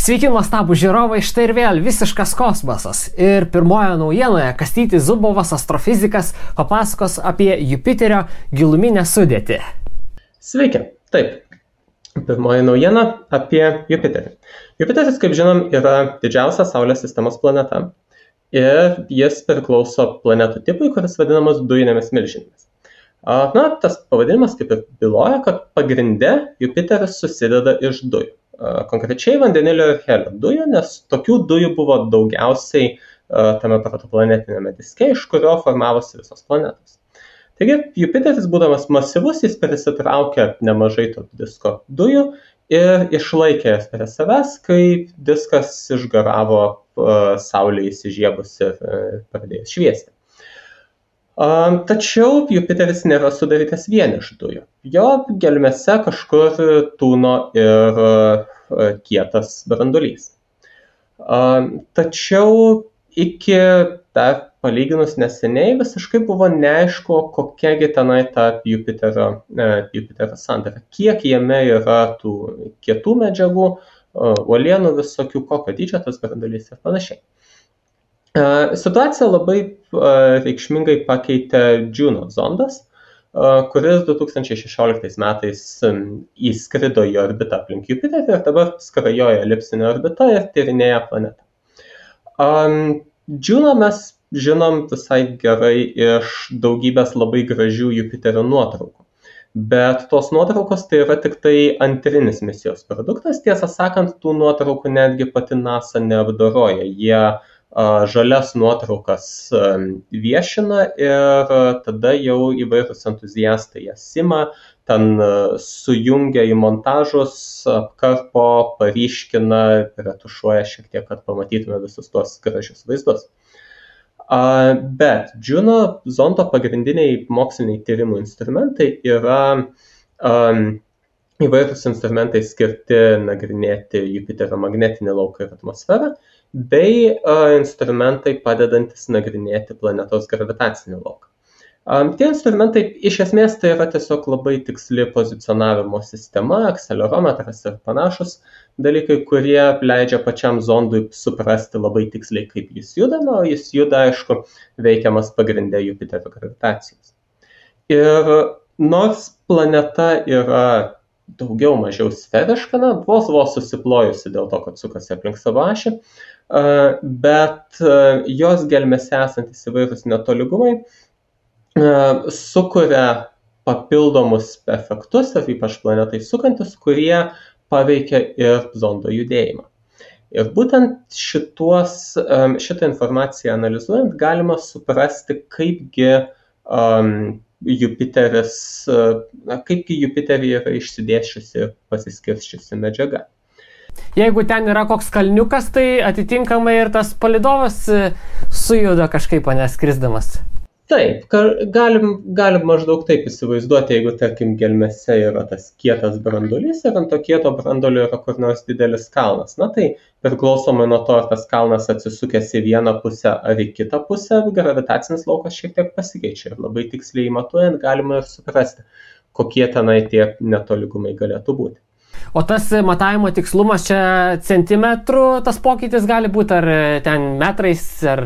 Sveiki, nuostabų žiūrovai, štai ir vėl visiškas kosmosas. Ir pirmoje naujienoje Kastytis Zubovas, astrofizikas, papasakos apie Jupiterio giluminę sudėtį. Sveiki, taip. Pirmoji naujiena apie Jupiterį. Jupiteris, kaip žinom, yra didžiausia Saulės sistemos planeta. Ir jis priklauso planetų tipui, kuris vadinamas dujinėmis milžinėmis. Tas pavadinimas kaip ir byloja, kad pagrinde Jupiteris susideda iš dujų. Konkrečiai vandenilio ir helio dujų, nes tokių dujų buvo daugiausiai tame protoplanetinėme diske, iš kurio formavosi visos planetos. Taigi, Jupiteris, būdamas masyvus, jis prisitraukė nemažai to disko dujų ir išlaikė jas prie savęs, kai diskas išgaravo Saulei įsižiebus ir pradėjus šviesti. Tačiau Jupiteris nėra sudarytas vien iš dujų. Jo gelmėse kažkur tūno ir kietas branduolys. Tačiau iki dar palyginus neseniai visiškai buvo neaišku, kokiagi tenai ta Jupiterio sandara. Kiek jame yra tų kietų medžiagų, uolienų visokių, kokio dydžio tas branduolys ir panašiai. Situaciją labai reikšmingai pakeitė Juno zondas, kuris 2016 metais įskrido į orbitą aplink Jupiterį ir dabar skrajoja elipsinė orbita ir tyrinėja planetą. Juno mes žinom visai gerai iš daugybės labai gražių Jupiterio nuotraukų. Bet tos nuotraukos tai yra tik tai antrinis misijos produktas. Tiesą sakant, tų nuotraukų netgi pati NASA neapdoroja. Jie žalias nuotraukas viešina ir tada jau įvairūs entuziastai jas ima, ten sujungia į montažus, apkarpo, paryškina, retušuoja šiek tiek, kad pamatytume visus tuos gražius vaizdus. Bet Juno zondo pagrindiniai moksliniai tyrimų instrumentai yra įvairūs instrumentai skirti nagrinėti Jupiterio magnetinį lauką ir atmosferą, bei instrumentai padedantis nagrinėti planetos gravitacinį lauką. Tie instrumentai iš esmės tai yra tiesiog labai tiksli pozicionavimo sistema, akselerometras ir panašus dalykai, kurie leidžia pačiam zondui suprasti labai tiksliai, kaip jis juda, o jis juda, aišku, veikiamas pagrinde Jupiterio gravitacijos. Ir nors planeta yra daugiau mažiau sferiška, vos susiplojusi dėl to, kad sukasi aplink savo ašį, bet jos gelmėse esantis įvairūs netolygumai sukuria papildomus efektus, ir ypač planetai sukantis, kurie paveikia ir zondo judėjimą. Ir būtent šitą informaciją analizuojant galima suprasti, kaipgi Jupiteryje yra išsidėsčiusi ir pasiskirsčiusi medžiaga. Jeigu ten yra koks kalniukas, tai atitinkamai ir tas palydovas sujuda kažkaip skrisdamas. Taip, galim maždaug taip įsivaizduoti, jeigu, tarkim, gelmėse yra tas kietas branduolys ir ant to kieto branduolio yra kur nors didelis kalnas. Tai priklausomai nuo to, ar tas kalnas atsisukęs į vieną pusę ar į kitą pusę, gravitacinis laukas šiek tiek pasikeičia. Ir labai tiksliai matuojant galima ir suprasti, kokie tenai tie netolygumai galėtų būti. O tas matavimo tikslumas čia centimetrų tas pokytis gali būti, ar ten metrais, ar...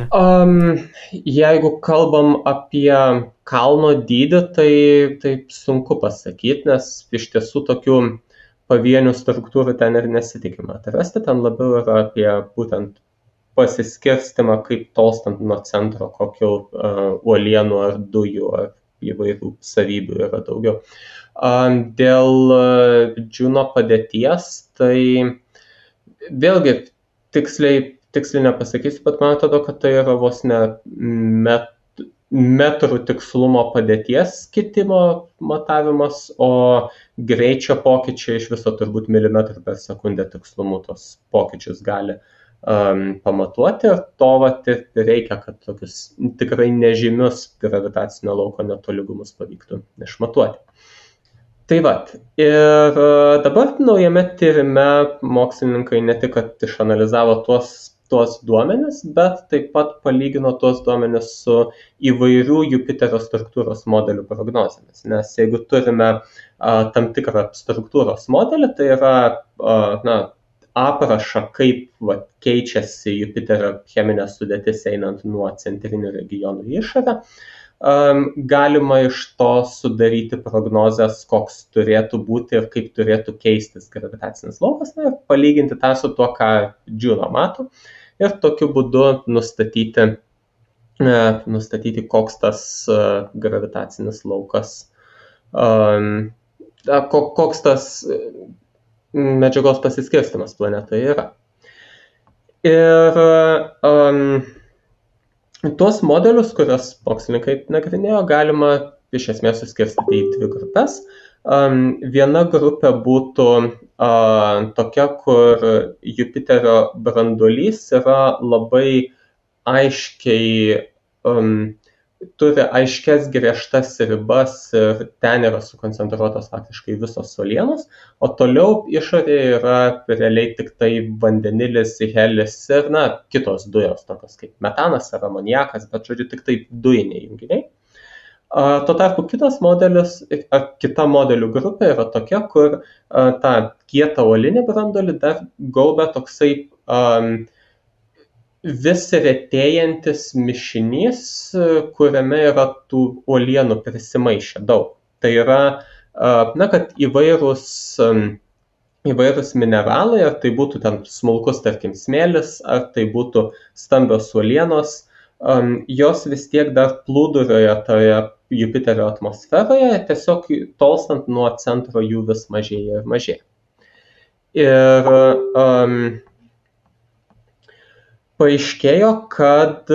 Jeigu kalbam apie kalno dydį, tai taip sunku pasakyti, nes iš tiesų tokių pavienių struktūrų ten ir nesitikima atrasti. Ten labiau yra apie būtent pasiskirstimą, kaip tolstant nuo centro, kokių uolienų ar dujų ar įvairių savybių yra daugiau. Dėl Juno padėties, tai vėlgi tiksliai nepasakysiu, bet man atrodo, kad tai yra vos ne metrų tikslumo padėties kitimo matavimas, o greičio pokyčiai iš viso turbūt milimetrų per sekundę tikslumu tos pokyčius gali pamatuoti, ir to reikia, kad tokius tikrai nežymius gravitacinio lauko netolygumus pavyktų išmatuoti. Tai ir dabar naujame tyrime mokslininkai ne tik, kad išanalizavo tuos duomenis, bet taip pat palygino tuos duomenis su įvairių Jupiterio struktūros modelių prognozėmis. Nes jeigu turime tam tikrą struktūros modelį, tai yra aprašą, kaip keičiasi Jupiterio cheminė sudėtis einant nuo centrinių regionų į išorę. Galima iš to sudaryti prognozes, koks turėtų būti ir kaip turėtų keistis gravitacinis laukas, ir palyginti tą su tuo, ką Juno mato, ir tokiu būdu nustatyti koks tas gravitacinis laukas, koks tas medžiagos pasiskirstimas planetoje yra. Ir tuos modelius, kuriuos mokslininkai nagrinėjo, galima iš esmės suskirstyti į dvi grupės. Viena grupė būtų tokia, kur Jupiterio branduolys yra labai aiškiai, turi aiškias griežtas ribas ir ten yra sukoncentruotos faktiškai visos uolienos, o toliau išorėje yra realiai tik tai vandenilis, helis ir kitos dujos, tokios kaip metanas ar amoniakas, bet žodžiu tik tai dujiniai junginiai. Tuo tarpu kitas modelis, kita modelių grupė yra tokia, kur tą kietą uolinį branduolį dar gaubia toksai vis retėjantis mišinys, kuriame yra tų uolienų prisimaišę daug. Tai yra, kad įvairūs mineralai, ar tai būtų ten smulkus, tarkim, smėlis, ar tai būtų stambios uolienos, jos vis tiek dar plūduriuoja toje Jupiterio atmosferoje, tiesiog tolstant nuo centro jų vis mažėja ir mažėja. Ir paaiškėjo, kad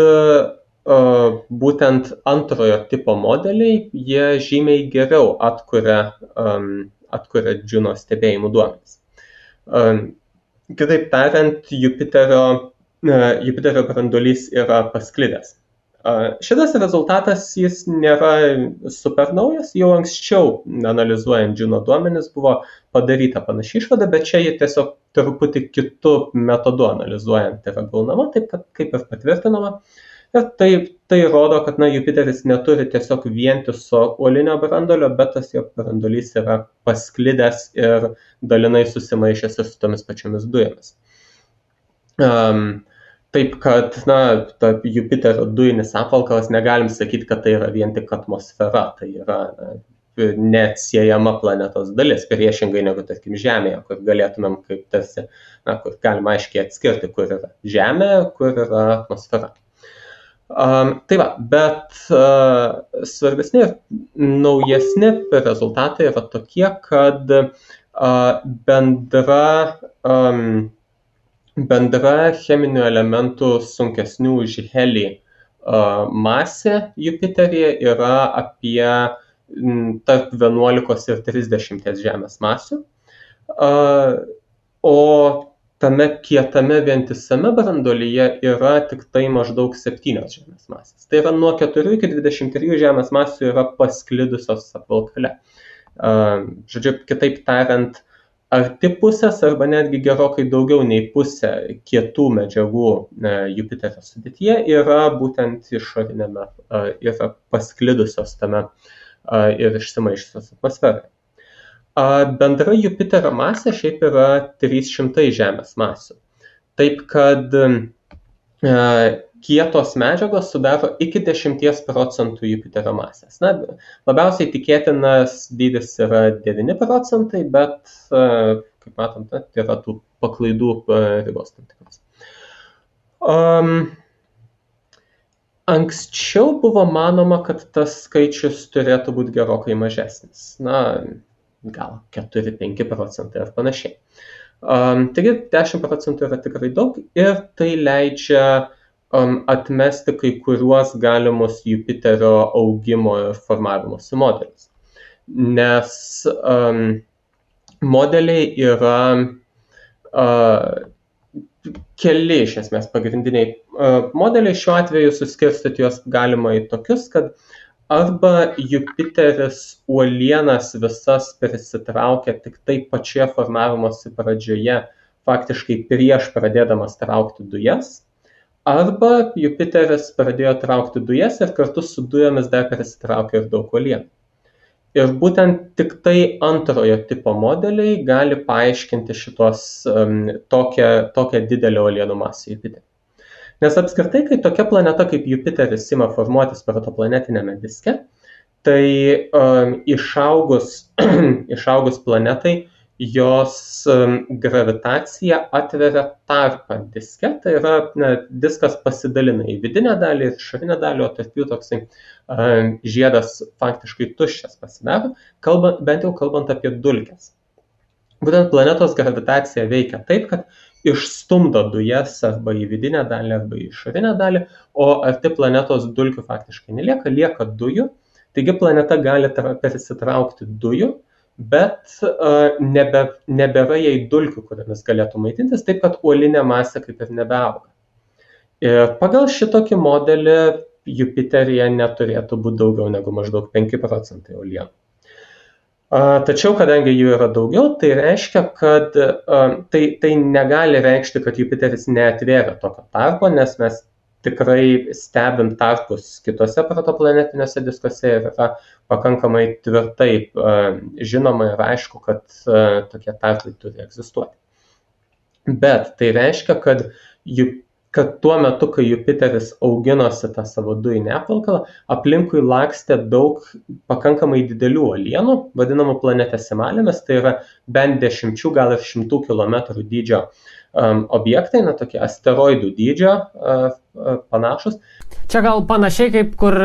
būtent antrojo tipo modeliai, jie žymiai geriau atkuria Juno stebėjimų duomenis. Kitaip tariant, Jupiterio branduolys yra pasklidęs. Šitas rezultatas, jis nėra super naujas, jau anksčiau analizuojant Juno duomenis buvo padaryta panaši išvada, bet čia jie tiesiog truputį kitų metodų analizuojant yra gaunama, taip kaip ir patvirtinama. Ir tai rodo, kad Jupiteris neturi tiesiog vientiso uolinio branduolio, bet tas jo branduolys yra pasklidęs ir dalinai susimaišęs ir su tomis pačiomis dujomis. Taip, kad Jupiterio dujinis apvalkalas negalim sakyti, kad tai yra vien tik atmosfera, tai yra neatsiejama planetos dalis, priešingai negu, tarkim, Žemėje, kur galėtumėm kaip tarsi, kur galima aiškiai atskirti, kur yra Žemė, kur yra atmosfera. Tai va, bet svarbesni ir naujesni rezultatai yra tokie, kad bendra cheminių elementų sunkesnių už helį masė Jupiteryje yra apie tarp 11 ir 30 Žemės masių, o tame kietame vientisame branduolyje yra tik tai maždaug 7 Žemės masės. Tai yra nuo 4 iki 23 Žemės masių yra pasklidusios apvalkale. Žodžiu, kitaip tariant, arti pusės arba netgi gerokai daugiau nei pusė kietų medžiagų Jupiterio sudėtyje yra būtent išorinėme, yra pasklidusios tame ir išsimaišusios atmosferoje. Bendra Jupiterio masė šiaip yra 300 Žemės masių. Taip kad kietos medžiagos sudaro iki 10% Jupiterio masės. Labiausiai tikėtinas dydis yra 9%, bet, kaip matom, yra tų paklaidų ribos tam tikros. Anksčiau buvo manoma, kad tas skaičius turėtų būti gerokai mažesnis. Gal 4-5% ar panašiai. Taigi 10% yra tikrai daug ir tai leidžia atmesti kai kuriuos galimus Jupiterio augimo ir formavimosi modelius. Nes modeliai yra keli iš esmės pagrindiniai modeliai. Šiuo atveju suskirstyti juos galima į tokius, kad arba Jupiteris uolienas visas prisitraukia tik tai pačioje formavimosi pradžioje, faktiškai prieš pradėdamas traukti dujas, arba Jupiteris pradėjo traukti dujas ir kartu su dujomis dar prisitraukė ir daug uolienų. Ir būtent tik tai antrojo tipo modeliai gali paaiškinti tokią didelę uolienų masę Jupiterį. Nes apskritai, kai tokia planeta kaip Jupiteris ima formuotis protoplanetinėme diske, tai išaugus planetai, jos gravitacija atveria tarpą diske, tai yra diskas pasidalina į vidinę dalį ir išorinę dalį, o tarp jų toksai žiedas faktiškai tuščias pasidaro, bent jau kalbant apie dulkes. Būtent planetos gravitacija veikia taip, kad išstumdo dujas arba į vidinę dalį, arba į išorinę dalį, o arti planetos dulkių faktiškai nelieka, lieka dujų. Taigi planeta gali persitraukti dujų, bet nebėra jai dulkių, kuriamis galėtų maitintis, taip kad uolinė masė kaip ir nebeauga. Ir pagal šitokį modelį Jupiteryje neturėtų būti daugiau negu maždaug 5% uolienų. Tačiau, kadangi jų yra daugiau, tai reiškia, kad tai negali reikšti, kad Jupiteris neatvėrė tokio tarpo, nes mes tikrai stebim tarpus kitose protoplanetiniuose diskuose ir yra pakankamai tvirtai žinoma ir aišku, kad tokie tarpai turi egzistuoti. Bet tai reiškia, kad tuo metu, kai Jupiteris auginosi tą savo dujinę apvalkalą, aplinkui lakstė daug pakankamai didelių uolienų, vadinamų planetesimalėmis, tai yra bent 10, gal ir 100 km dydžio objektai, tokie asteroidų dydžio panašus. Čia gal panašiai kaip kur,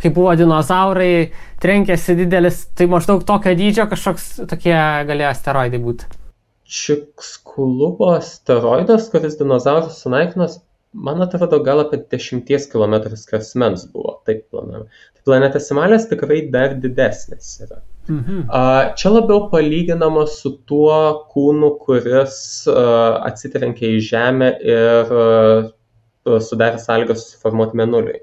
kaip buvo dinozaurai, trenkėsi didelis, tai maždaug tokio dydžio kažkoks tokie galėjo asteroidai būti. Čikskulubo asteroidas, kuris dinozaurus sunaikinos, man atrodo, gal apie 10 km skersmens buvo, taip planuojama. Tai planetesimalės tikrai dar didesnės yra. Čia labiau palyginama su tuo kūnu, kuris atsitrenkė į Žemę ir sudarė sąlygas susiformuoti Mėnuliui.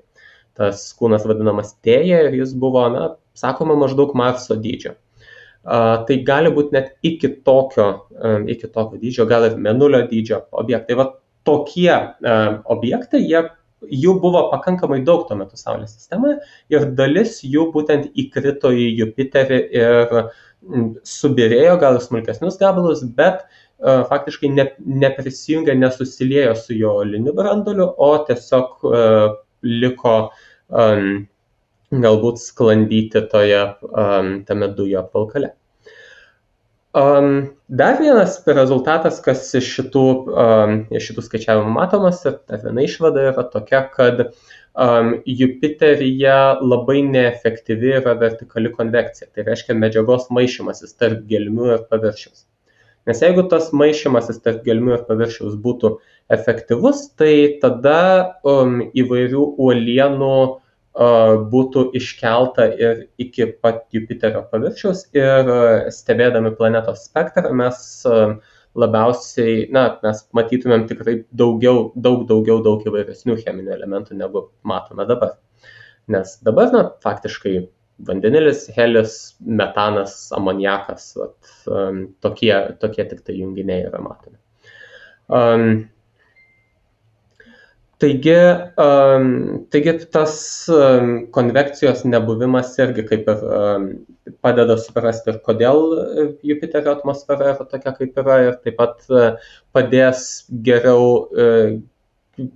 Tas kūnas vadinamas Tėja ir jis buvo, sakoma, maždaug Marso dydžio. Tai gali būti net iki tokio dydžio, gal ir Mėnulio dydžio objektai. Va tokie objektai, jų buvo pakankamai daug tuo metu Saulės sistemoje ir dalis jų būtent įkrito į Jupiterį ir subirėjo gal smulkesnius gabalus, bet faktiškai neprisijungė, nesusiliejo su jo uoliniu branduoliu, o tiesiog liko galbūt sklandyti tame dujų apvalkale. Dar vienas rezultatas, kas iš šitų skaičiavimų matomas, ir dar viena išvada yra tokia, kad Jupiteryje labai neefektyvi yra vertikali konvekcija, tai reiškia medžiagos maišymasis tarp gelmių ir paviršiaus. Nes jeigu tas maišymasis tarp gelmių ir paviršiaus būtų efektyvus, tai tada įvairių uolienų būtų iškelta ir iki pat Jupiterio paviršiaus ir stebėdami planetos spektrą mes labiausiai, mes matytumėm tikrai daug įvairesnių cheminių elementų negu matome dabar. Nes dabar, faktiškai vandenilis, helis, metanas, amoniakas, tokie tik tai junginiai yra matomi. Taigi tas konvekcijos nebuvimas irgi kaip ir padeda suprasti ir kodėl Jupiterio atmosfera yra tokia kaip yra ir taip pat padės geriau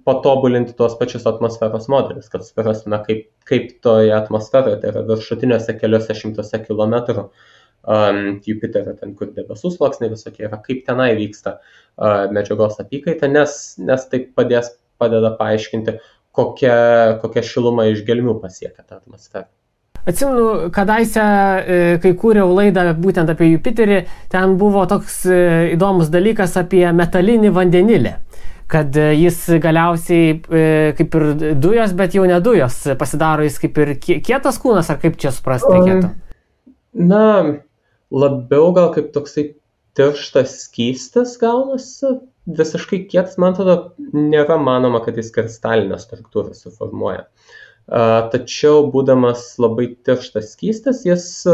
patobulinti tuos pačius atmosferos modelius, kad suprastume kaip toje atmosferoje, tai yra viršutiniuose keliuose šimtuose kilometrų Jupiterio, ten kur debesų sluoksniai visokie yra, kaip tenai vyksta medžiagos apykaita, nes tai padeda paaiškinti, kokia šiluma iš gelmių pasiekia tą atmosferą. Atsimenu, kadaise, kai kūriau laidą būtent apie Jupiterį, ten buvo toks įdomus dalykas apie metalinį vandenilį, kad jis galiausiai kaip ir dujos, bet jau ne dujos, pasidaro jis kaip ir kietas kūnas, ar kaip čia suprasti reikėtų? Labiau gal kaip toksai tirštas skystis gaunasi. Visiškai kietas, man atrodo, nėra manoma, kad jis kristalinę struktūrą suformuoja. Tačiau, būdamas labai tirštas skystis, jis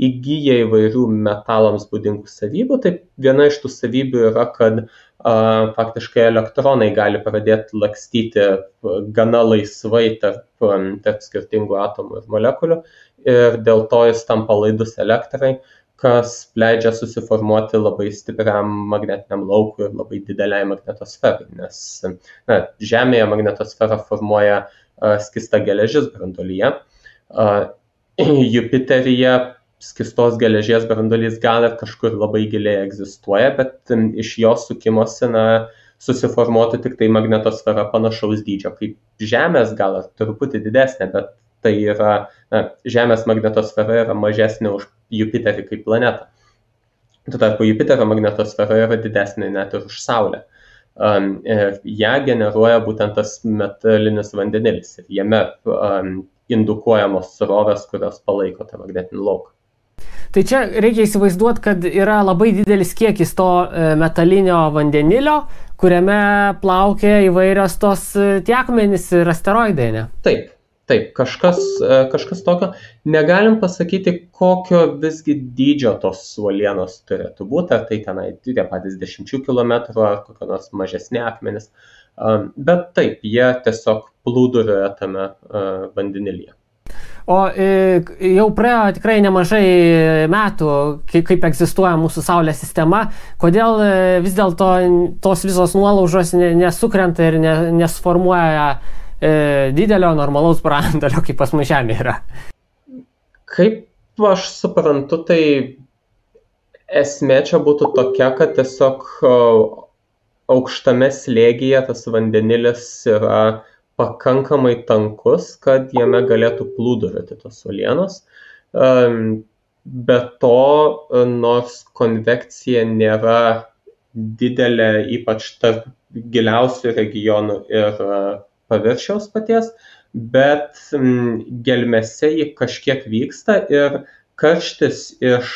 įgyja įvairių metalams būdingų savybių. Tai viena iš tų savybių yra, kad faktiškai elektronai gali pradėti lakstyti gana laisvai tarp skirtingų atomų ir molekulių ir dėl to jis tampa laidus elektrai, kas leidžia susiformuoti labai stipriam magnetiniam laukui ir labai dideliai magnetosferai, nes Žemėje magnetosferą formuoja skista geležis branduolyje. Jupiteryje skistos geležies branduolys gal ir kažkur labai giliai egzistuoja, bet iš jo sukimosi susiformuotų tik tai magnetosfera panašaus dydžio kaip Žemės, gal ir truputį didesnė, bet tai yra, Žemės magnetosfera yra mažesnė už Jupiterį kaip planetą. Tuo tarpu Jupiterio magnetosfera yra didesnė net ir už Saulę. Ją generuoja būtent tas metalinis vandenilis ir jame indukuojamos srovės, kurios palaiko tą magnetinį lauką. Tai čia reikia įsivaizduoti, kad yra labai didelis kiekis to metalinio vandenilio, kuriame plaukia įvairios tos tie akmenys ir asteroidai, ne? Taip, kažkas tokio. Negalim pasakyti, kokio visgi dydžio tos uolienos turėtų būti, ar tai tenai tie patys 10 km ar kokio nors mažesni akmenys, bet taip, jie tiesiog plūduriuoja tame vandenilyje. O jau praėjo tikrai nemažai metų, kaip egzistuoja mūsų Saulės sistema. Kodėl vis dėlto tos visos nuolaužos nesukrenta ir nesformuoja didelio normalaus branduolio, kaip pas mus Žemė yra? Kaip aš suprantu, tai esmė čia būtų tokia, kad tiesiog aukštame slėgyje tas vandenilis yra pakankamai tankus, kad jame galėtų plūduriuoti tos uolienos. Be to, nors konvekcija nėra didelė, ypač tarp giliausių regionų ir paviršiaus paties, bet gelmėse ji kažkiek vyksta ir karštis iš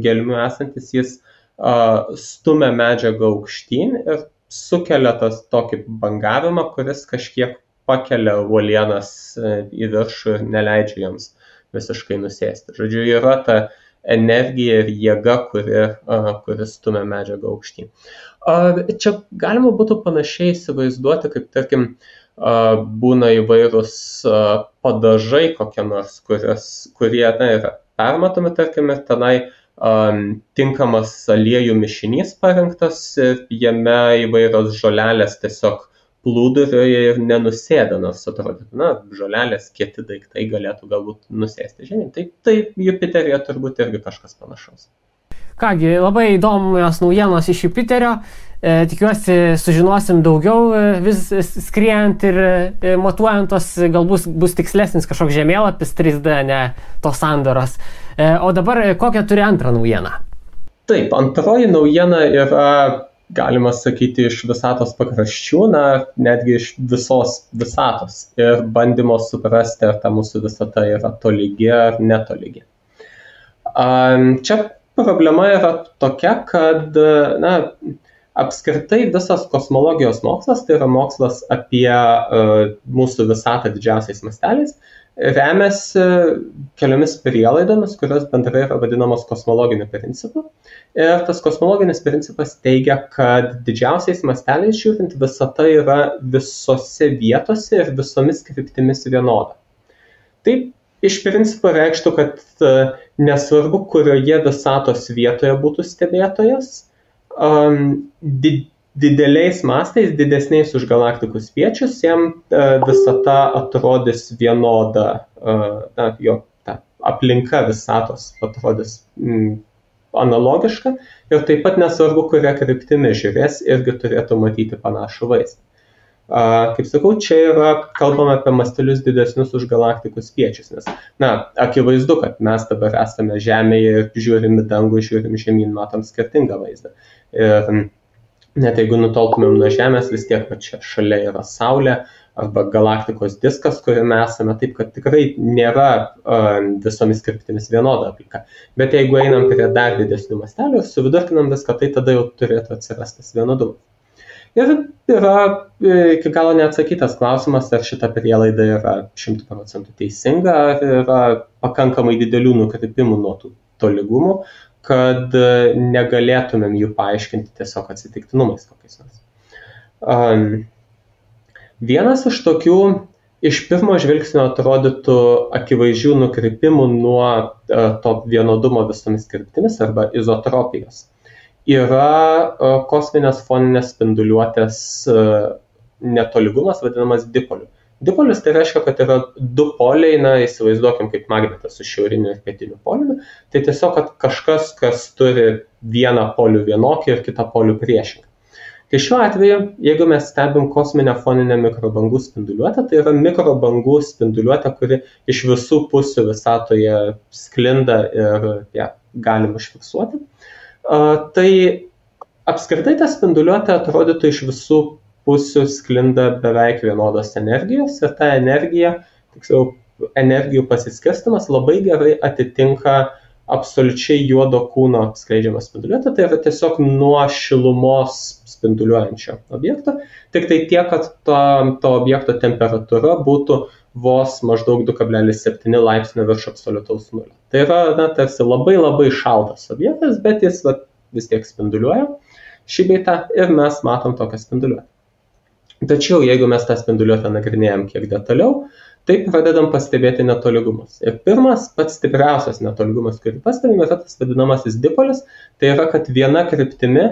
gelmių esantis jis stumia medžiagą aukštyn ir sukelia tokį bangavimą, kuris kažkiek pakelia uolienas į viršų ir neleidžia joms visiškai nusėsti. Žodžiu, yra ta energija ir jėga, kuri stumia medžiagą aukštyn. Čia galima būtų panašiai įsivaizduoti, kaip tarkim būna įvairūs padažai kokie nors, kurie yra permatomi, tarkim, ir tenai tinkamas aliejų mišinys parengtas ir jame įvairios žolelės tiesiog plūduriuoja ir nenusėda, nors atrodytų, žolelės kieti daiktai galėtų galbūt nusėsti žemyn. Tai Jupiteryje turbūt irgi kažkas panašaus. Kągi, labai įdomios naujienos iš Jupiterio. Tikiuosi sužinosim daugiau vis skriejant ir matuojant tos, galbūt bus tikslesnis kažkoks žemėlapis 3D, ne tos sandaros. O dabar kokią turi antrą naujieną? Taip, antroji naujiena yra, galima sakyti, iš visatos pakraščių, netgi iš visos visatos ir bandymo suprasti, ar ta mūsų visata yra tolygi ar netolygi. Čia problema yra tokia, kad apskritai visas kosmologijos mokslas, tai yra mokslas apie mūsų visatą didžiausiais masteliais, remiasi keliomis prielaidomis, kurios bendrai yra vadinamos kosmologiniu principu. Ir tas kosmologinis principas teigia, kad didžiausiais masteliais žiūrint visata yra visose vietose ir visomis kryptimis vienoda. Tai iš principo reikštų, kad nesvarbu, kurioje visatos vietoje būtų stebėtojas, dideliais mastais, didesniais už galaktikų spiečius, jam visata atrodys vienoda, jo aplinka visatos atrodys analogiška ir taip pat nesvarbu, kuria kryptimi žiūrės, irgi turėtų matyti panašų vaizdą. Kaip sakau, čia yra kalbama apie mastelius didesnius už galaktikų spiečius, nes, akivaizdu, kad mes dabar esame Žemėje ir žiūrim į dangų, žiūrim žemyn, matom skirtingą vaizdą. Ir net jeigu nutoltumėm nuo Žemės, vis tiek, kad čia šalia yra Saulė arba galaktikos diskas, kuriame esame, taip, kad tikrai nėra visomis kryptimis vienoda aplinka. Bet jeigu einam prie dar didesnių mastelių ir suvidurkinam viską, tai tada jau turėtų atsirastas vienodumas. Ir yra iki galo neatsakytas klausimas, ar šita prielaida yra 100% teisinga, ar yra pakankamai didelių nukrypimų nuo tų tolygumų, kad negalėtumėm jų paaiškinti tiesiog atsitiktinumais kokiais nors. Vienas iš tokių iš pirmo žvilgsnio atrodytų akivaizdžių nukrypimų nuo to vienodumo visomis kryptimis arba izotropijos yra kosminės foninės spinduliuotės netolygumas vadinamas dipoliu. Dipolis tai reiškia, kad yra du poliai, įsivaizduokim kaip magnetas su šiauriniu ir pietiniu poliumi, tai tiesiog, kad kažkas, kas turi vieną polių vienokį ir kitą polių priešingą. Tai šiuo atveju, jeigu mes stebim kosminę foninę mikrobangų spinduliuotę, tai yra mikrobangų spinduliuotė, kuri iš visų pusių visatoje sklinda ir ją galim užfiksuoti. Tai apskritai ta spinduliuotė atrodytų iš visų pusių sklinda beveik vienodos energijos ir ta energija, tiksliau energijų pasiskirstimas labai gerai atitinka absoliučiai juodo kūno skleidžiamą spinduliuotę, tai yra tiesiog nuo šilumos spinduliuojančio objekto, tik tai tiek, kad to objekto temperatūra būtų vos maždaug 2,7 laipsnio virš absoliutaus nulio. Tai yra tarsi labai labai šaltas objektas, bet jis vis tiek spinduliuoja šį bei tą ir mes matom tokią spinduliuotę. Tačiau, jeigu mes tą spinduliuotę nagrinėjam kiek detaliau, tai pradedam pastebėti netolygumus. Ir pirmas, pats stipriausias netolygumas, kurį pastebime, yra tas vadinamasis dipolis, tai yra, kad viena kryptimi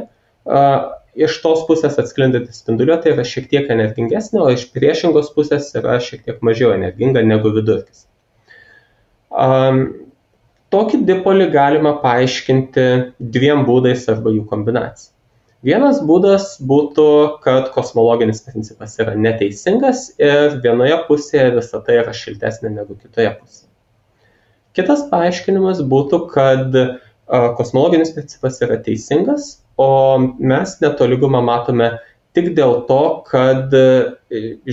iš tos pusės atsklindanti spinduliuotė yra šiek tiek energingesnė, o iš priešingos pusės yra šiek tiek mažiau energinga negu vidurkis. Tokį dipolį galima paaiškinti dviem būdais arba jų kombinacija. Vienas būdas būtų, kad kosmologinis principas yra neteisingas ir vienoje pusėje visata yra šiltesnė negu kitoje pusėje. Kitas paaiškinimas būtų, kad kosmologinis principas yra teisingas, o mes netolygumą matome tik dėl to, kad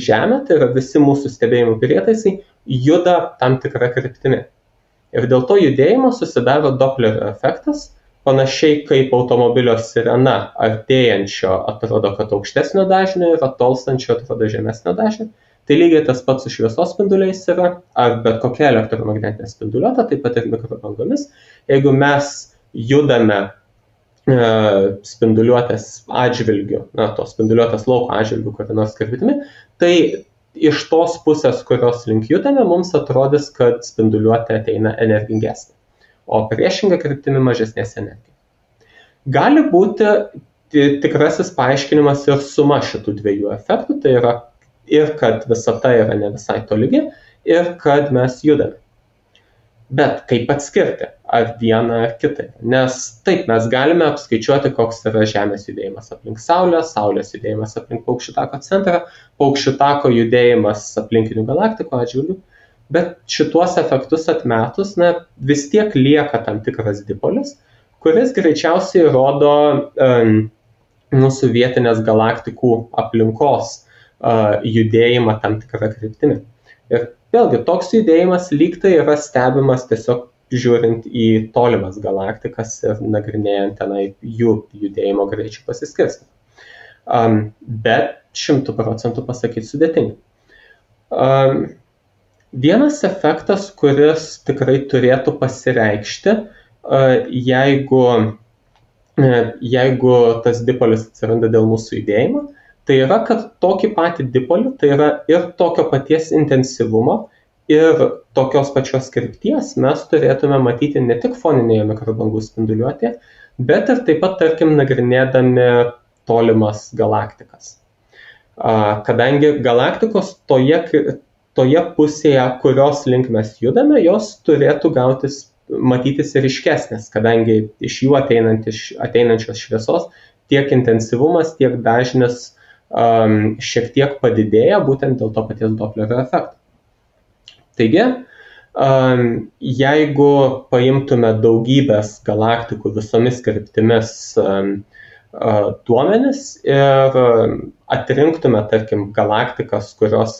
Žemė, tai yra visi mūsų stebėjimų prietaisai, juda tam tikrą kryptimi. Ir dėl to judėjimo susidaro Dopplerio efektas, panašiai kaip automobilio sirena artėjančio atrodo, kad aukštesnio dažnio ir atolstančio atrodo žemesnio dažnio. Tai lygiai tas pats su šviesos spinduliais yra, ar bet kokia elektromagnetinė spinduliuotė, taip pat ir mikrobangomis. Jeigu mes judame spinduliuotės atžvilgiu, tos spinduliuotės lauko atžvilgiu kokią nors kryptimi, tai iš tos pusės, kurios link judame, mums atrodys, kad spinduliuotė ateina energingesnė, o priešinga kryptimi mažesnės energijos. Gali būti tikrasis paaiškinimas ir suma šitų dviejų efektų, tai yra ir kad visata yra ne visai tolygi, ir kad mes judame. Bet kaip atskirti, ar vieną ar kitą? Nes taip, mes galime apskaičiuoti, koks yra Žemės judėjimas aplink Saulę, Saulės judėjimas aplink Paukščių tako centrą, Paukščių tako judėjimas aplinkinių galaktikų atžvilgių, bet šituos efektus atmetus, vis tiek lieka tam tikras dipolis, kuris greičiausiai rodo mūsų vietinės galaktikų aplinkos judėjimą tam tikrą kryptimi. Ir vėlgi, toks judėjimas lygtai yra stebimas tiesiog žiūrint į tolimas galaktikas ir nagrinėjant tenai jų judėjimo greičių pasiskirstimą. Bet 100% pasakyti sudėtinga. Vienas efektas, kuris tikrai turėtų pasireikšti, jeigu tas dipolis atsiranda dėl mūsų judėjimo, tai yra, kad tokį patį dipolį, tai yra ir tokio paties intensyvumo, ir tokios pačios krypties mes turėtume matyti ne tik foninėje mikrobangų spinduliuotėje, bet ir taip pat, tarkim, nagrinėdami tolimas galaktikas. Kadangi galaktikos toje pusėje, kurios link mes judame, jos turėtų matytis ryškesnės, kadangi iš jų ateinančios šviesos tiek intensyvumas, tiek dažnis šiek tiek padidėja būtent dėl to paties Dopplerio efekto. Taigi, jeigu paimtume daugybės galaktikų visomis kryptimis duomenis ir atrinktume, tarkim, galaktikas, kurios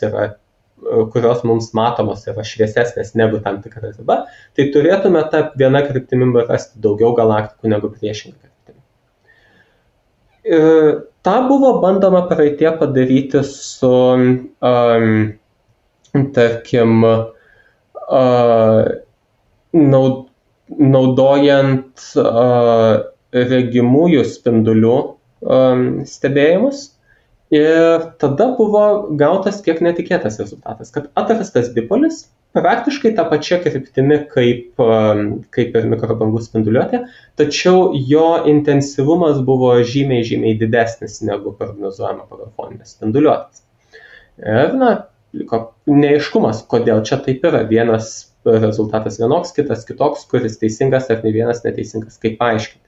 mums matomos yra šviesesnės negu tam tikra riba, tai turėtume tą vieną kryptimį rasti daugiau galaktikų negu priešingą kryptimį. Ta buvo bandoma praeitie padaryti su, tarkim, naudojant regimųjų spindulių stebėjimus. Ir tada buvo gautas kiek netikėtas rezultatas, kad atrastas dipolis praktiškai tą pačią kryptimi kaip ir mikrobangų spinduliuotė, tačiau jo intensyvumas buvo žymiai didesnis negu prognozuojama pagal foninės spinduliuotės. Ir liko neaiškumas, kodėl čia taip yra. Vienas rezultatas vienoks, kitas kitoks, kuris teisingas ar ne vienas neteisingas, kaip paaiškinti.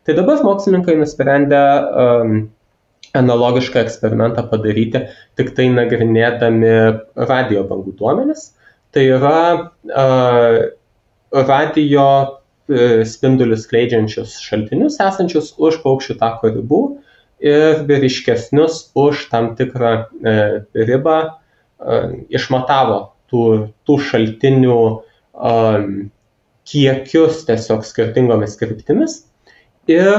Tai dabar mokslininkai nusprendė analogišką eksperimentą padaryti, tik tai nagrinėdami radio bangų duomenis. Tai yra radio spindulius skleidžiančius šaltinius esančius už paukščių tako ribų ir ryškesnius už tam tikrą ribą išmatavo tų šaltinių kiekius tiesiog skirtingomis kryptimis ir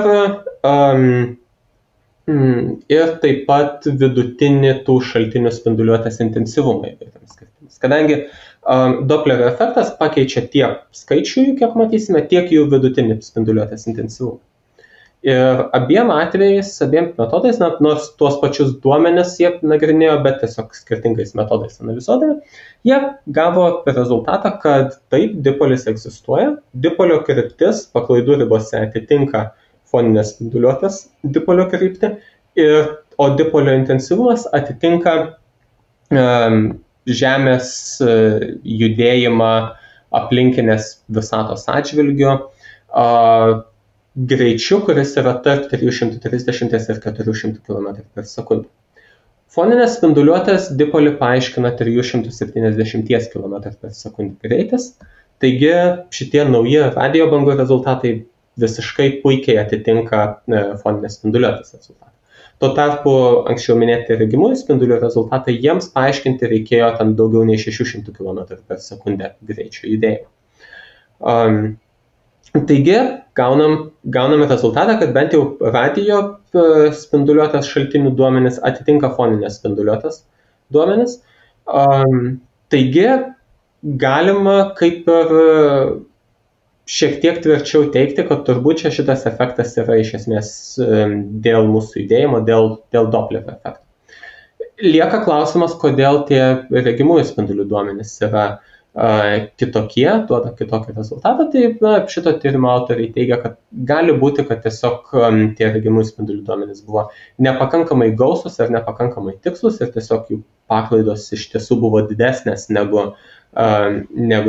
taip pat vidutinį tų šaltinių spinduliuotės intensyvumą įvairiomis kryptimis. Kadangi Dopplerio efektas pakeičia tiek skaičių, kiek matysime, tiek jų vidutinį spinduliuotės intensyvumą. Ir abiem metodais, nors tuos pačius duomenis jie nagrinėjo, bet tiesiog skirtingais metodais analizuodami, jie gavo rezultatą, kad taip, dipolis egzistuoja, dipolio kryptis paklaidų ribose atitinka foninės spinduliuotės dipolio kryptį, o dipolio intensyvumas atitinka Žemės judėjimą aplinkinės visatos atžvilgiu greičiu, kuris yra tarp 330 ir 400 km per sekundę. Foninės spinduliuotės dipolį paaiškina 370 km per sekundę greitis, taigi šitie nauji radio bangų rezultatai visiškai puikiai atitinka foninės spinduliuotės rezultatą. Tuo tarpu anksčiau minėti regimųjų spindulių rezultatai jiems paaiškinti reikėjo ten daugiau nei 600 km per sekundę greičio judėjimo. Taigi gauname rezultatą, kad bent jau radio spinduliuotės šaltinių duomenis atitinka foninės spinduliuotės duomenis. Taigi galima kaip ir šiek tiek tvirčiau teigti, kad turbūt šitas efektas yra iš esmės dėl mūsų judėjimo, dėl Dopplerio efekto. Lieka klausimas, kodėl tie regimųjų spindulių duomenys yra kitokie, duoda kitokį rezultatą. Tai šito tyrimo autoriai teigia, kad gali būti, kad tiesiog tie regimųjų spindulių duomenys buvo nepakankamai gausus ar nepakankamai tikslus ir tiesiog jų paklaidos iš tiesų buvo didesnės negu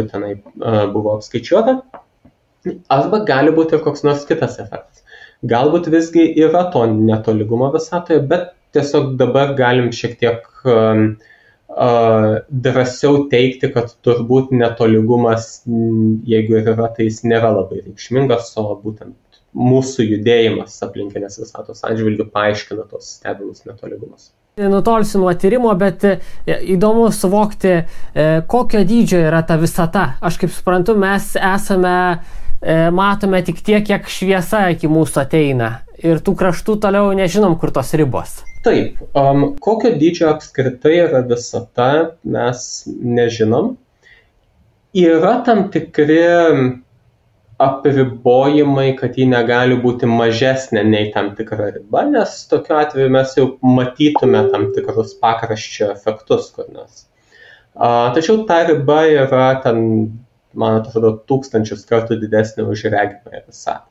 tenai buvo apskaičiuota. Arba gali būti ir koks nors kitas efektas. Galbūt visgi yra to netolygumo visatoje, bet tiesiog dabar galim šiek tiek drąsiau teikti, kad turbūt netolygumas, jeigu ir yra, tai jis nėra labai reikšmingas, o būtent mūsų judėjimas aplinkinės visatos atžvilgiu paaiškina tos stebimus netolygumus. Nutolsiu nuo tyrimo, bet įdomu suvokti, kokio dydžio yra ta visata. Aš kaip suprantu, mes matome tik tiek, kiek šviesa iki mūsų ateina. Ir tų kraštų toliau nežinom, kur tos ribos. Taip, kokio dydžio apskritai yra visata, mes nežinom. Yra tam tikri apribojimai, kad ji negali būti mažesnė nei tam tikra riba, nes tokiu atveju mes jau matytume tam tikrus pakraščio efektus kur nors. Tačiau ta riba yra ten, man atrodo, 1000 kartų didesnė už regimąją visatą.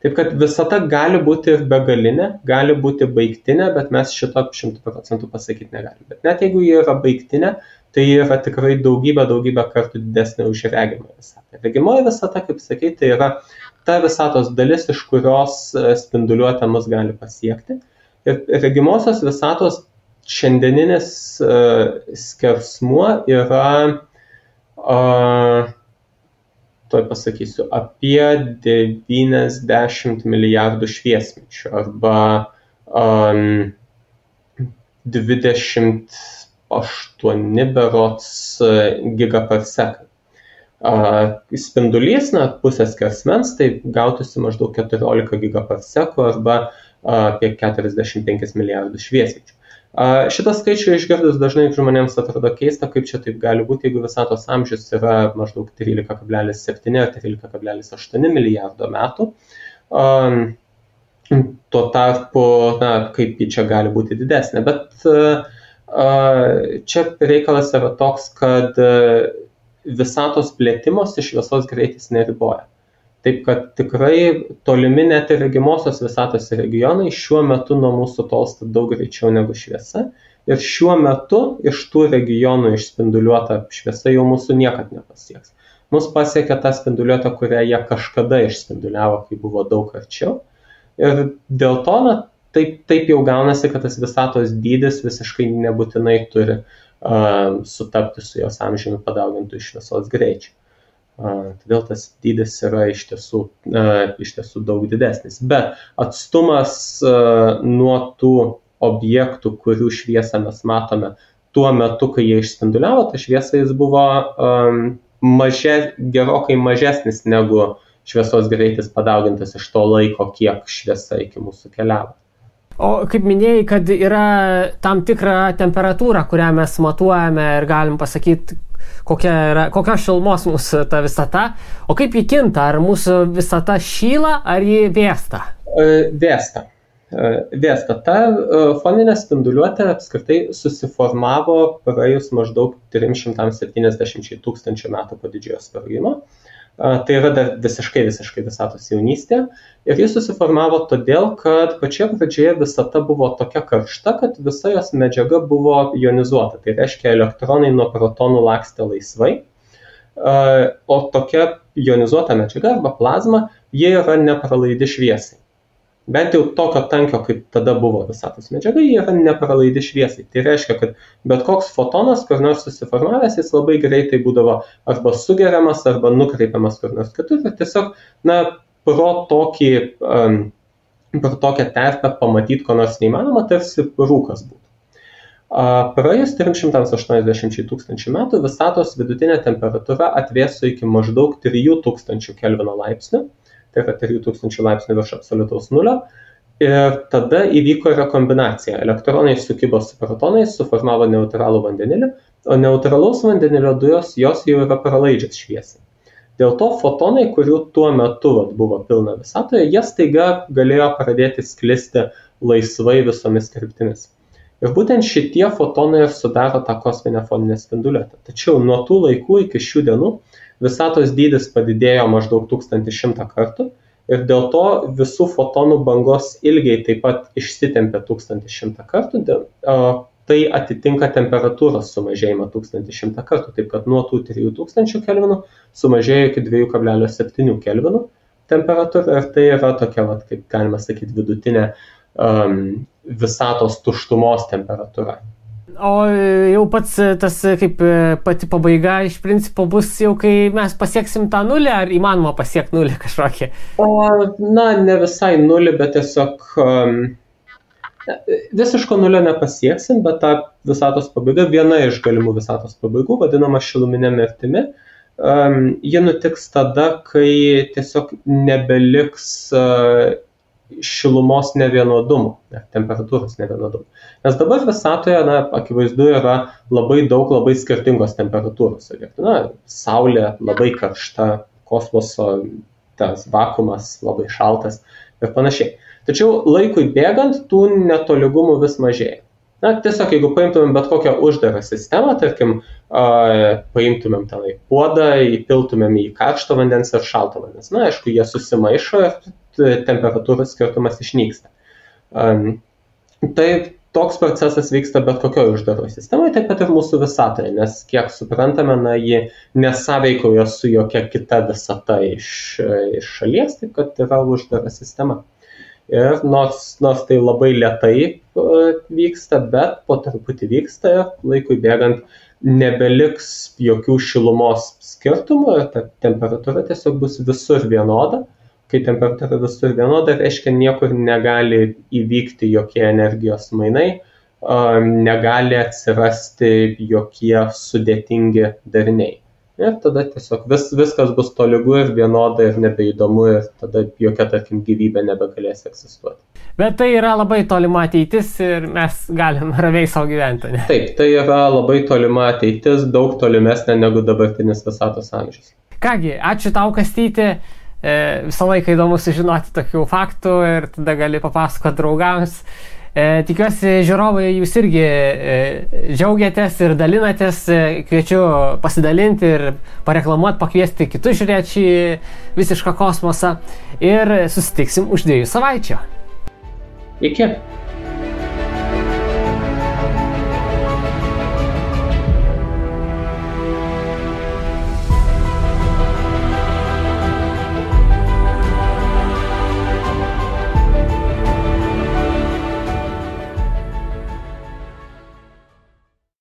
Taip kad visata gali būti ir begalinė, gali būti baigtinė, bet mes šito 100% pasakyti negalim. Bet net jeigu ji yra baigtinė, tai yra tikrai daugybę kartų didesnė už regimąją visatą. Regimoji visata, kaip sakai, tai yra ta visatos dalis, iš kurios spinduliuotė mus gali pasiekti. Ir regimosios visatos šiandieninis skersmuo yra tuoj pasakysiu, apie 90 milijardų šviesmečių arba 28 berods gigaparsekai. Spindulys, pusės skersmens, tai gautųsi maždaug 14 gigaparsekų arba apie 45 milijardų šviesmečių. Šitą skaičių išgirdus dažnai žmonėms atrodo keista, kaip čia taip gali būti, jeigu visatos amžius yra maždaug 13,7 ar 13,8 milijardo metų. Tuo tarpu, kaip ji čia gali būti didesnė. Bet čia reikalas yra toks, kad visatos plėtimosi šviesos greitis neriboja. Taip kad tikrai tolimi net ir regimosios visatos regionai šiuo metu nuo mūsų tolsta daug greičiau negu šviesa. Ir šiuo metu iš tų regionų išspinduliuota šviesa jau mūsų niekad nepasieks. Mus pasiekia ta spinduliuota, kurią jie kažkada išspinduliavo, kai buvo daug arčiau. Ir dėl to, taip jau gaunasi, kad tas visatos dydis visiškai nebūtinai turi sutapti su jos amžiumi padaugintų šviesos greičiu. Todėl tas dydis yra iš tiesų daug didesnis. Bet atstumas nuo tų objektų, kurių šviesą mes matome tuo metu, kai jie išspinduliavo, ta šviesa jis buvo gerokai mažesnis negu šviesos greitis padaugintas iš to laiko, kiek šviesa iki mūsų keliavo. O kaip minėjai, kad yra tam tikra temperatūra, kurią mes matuojame ir galim pasakyti, kokia šilumos mūsų ta visata, o kaip ji kinta, ar mūsų visata šyla, ar ji vėsta? Vėsta. Ta foninė spinduliuotė apskritai susiformavo praėjus maždaug 370 tūkstančių metų po didžiojo sprogimo. Tai yra dar visiškai visatos jaunystė. Ir jis susiformavo todėl, kad pačioje pradžioje visata buvo tokia karšta, kad visa jos medžiaga buvo ionizuota. Tai reiškia, elektronai nuo protonų lakstė laisvai. O tokia ionizuota medžiaga arba plazma, jie yra nepralaidi šviesai. Bent jau tokio tankio, kaip tada buvo visatos medžiaga, jie yra nepralaidi šviesai. Tai reiškia, kad bet koks fotonas, kur nors susiformavęs, jis labai greitai būdavo arba sugeriamas, arba nukreipiamas kur nors kitur. Ir tiesiog, pro tokią terpę pamatyti, ko nors neįmanoma, tarsi rūkas būtų. Praėjus 380 tūkstančių metų visatos vidutinė temperatūra atvėso iki maždaug 3000 Kelvino laipsnių. Tai yra 3000 laipsnių virš absoliutaus nulio. Ir tada įvyko rekombinacija. Elektronai sukibo su protonais, suformavo neutralų vandenilį, o neutralaus vandenilio dujos jos jau yra pralaidžios šviesai. Dėl to fotonai, kurių tuo metu buvo pilna visatoje, jie staiga galėjo pradėti sklisti laisvai visomis kryptimis. Ir būtent šitie fotonai ir sudaro tą kosminę foninę spinduliuotę. Tačiau nuo tų laikų iki šių dienų visatos dydis padidėjo maždaug 1100 kartų ir dėl to visų fotonų bangos ilgiai taip pat išsitempė 1100 kartų. Tai atitinka temperatūros sumažėjimą 1100 kartų, taip kad nuo tų 3000 kelvinų sumažėjo iki 2,7 kelvinų temperatūra ir tai yra tokia, kaip galima sakyti, vidutinė visatos tuštumos temperatūra. O jau pats tas kaip pati pabaiga iš principo bus jau, kai mes pasieksim tą nulį, ar įmanoma pasiekti nulį kažkokį? Ne visai nulį, bet tiesiog visiško nulio nepasieksim, bet ta visatos pabaiga, viena iš galimų visatos pabaigų, vadinama šiluminė mirtimi, ji nutiks tada, kai tiesiog nebeliks šilumos nevienodumų, temperatūros nevienodumų. Nes dabar visatoje, akivaizdu, yra labai daug labai skirtingos temperatūros. Saulė labai karšta, kosmoso tas vakuumas labai šaltas ir panašiai. Tačiau laikui bėgant tų netolygumų vis mažėja. Tiesiog, jeigu paimtumėm bet kokią uždarą sistemą, tarkim, paimtumėm tenai puodą, įpiltumėm į karšto vandens ir šalto vandens. Aišku, jie susimaišo ir temperatūros skirtumas išnyksta. Tai toks procesas vyksta bet kokioje uždaroje sistemoje, taip pat ir mūsų visatoje, nes kiek suprantame, ji nesąveikauja su jokia kita visata iš šalies, taip kad yra uždara sistema. Ir nors tai labai lėtai vyksta, bet po truputį vyksta ir laikui bėgant nebeliks jokių šilumos skirtumų ir ta temperatūra tiesiog bus visur vienoda. Kai temperatūra visur vienoda, reiškia niekur negali įvykti jokie energijos mainai, negali atsirasti jokie sudėtingi dariniai. Ir tada tiesiog viskas bus tolygu ir vienoda ir nebeįdomu ir tada jokia, tarkim, gyvybė nebegalės egzistuoti. Bet tai yra labai tolima ateitis ir mes galim ramiai savo gyventi, ne? Taip, tai yra labai tolima ateitis, daug tolimesnė negu dabartinis visatos amžius. Kągi, ačiū tau, Kastyti. Visą laiką įdomu sužinoti tokių faktų ir tada gali papasakoti draugams. Tikiuosi, žiūrovai, jūs irgi džiaugiatės ir dalinatės. Kviečiu pasidalinti ir pareklamuoti, pakviesti kitus žiūrėti šį visišką kosmosą. Ir susitiksim už 2 savaičių. Iki.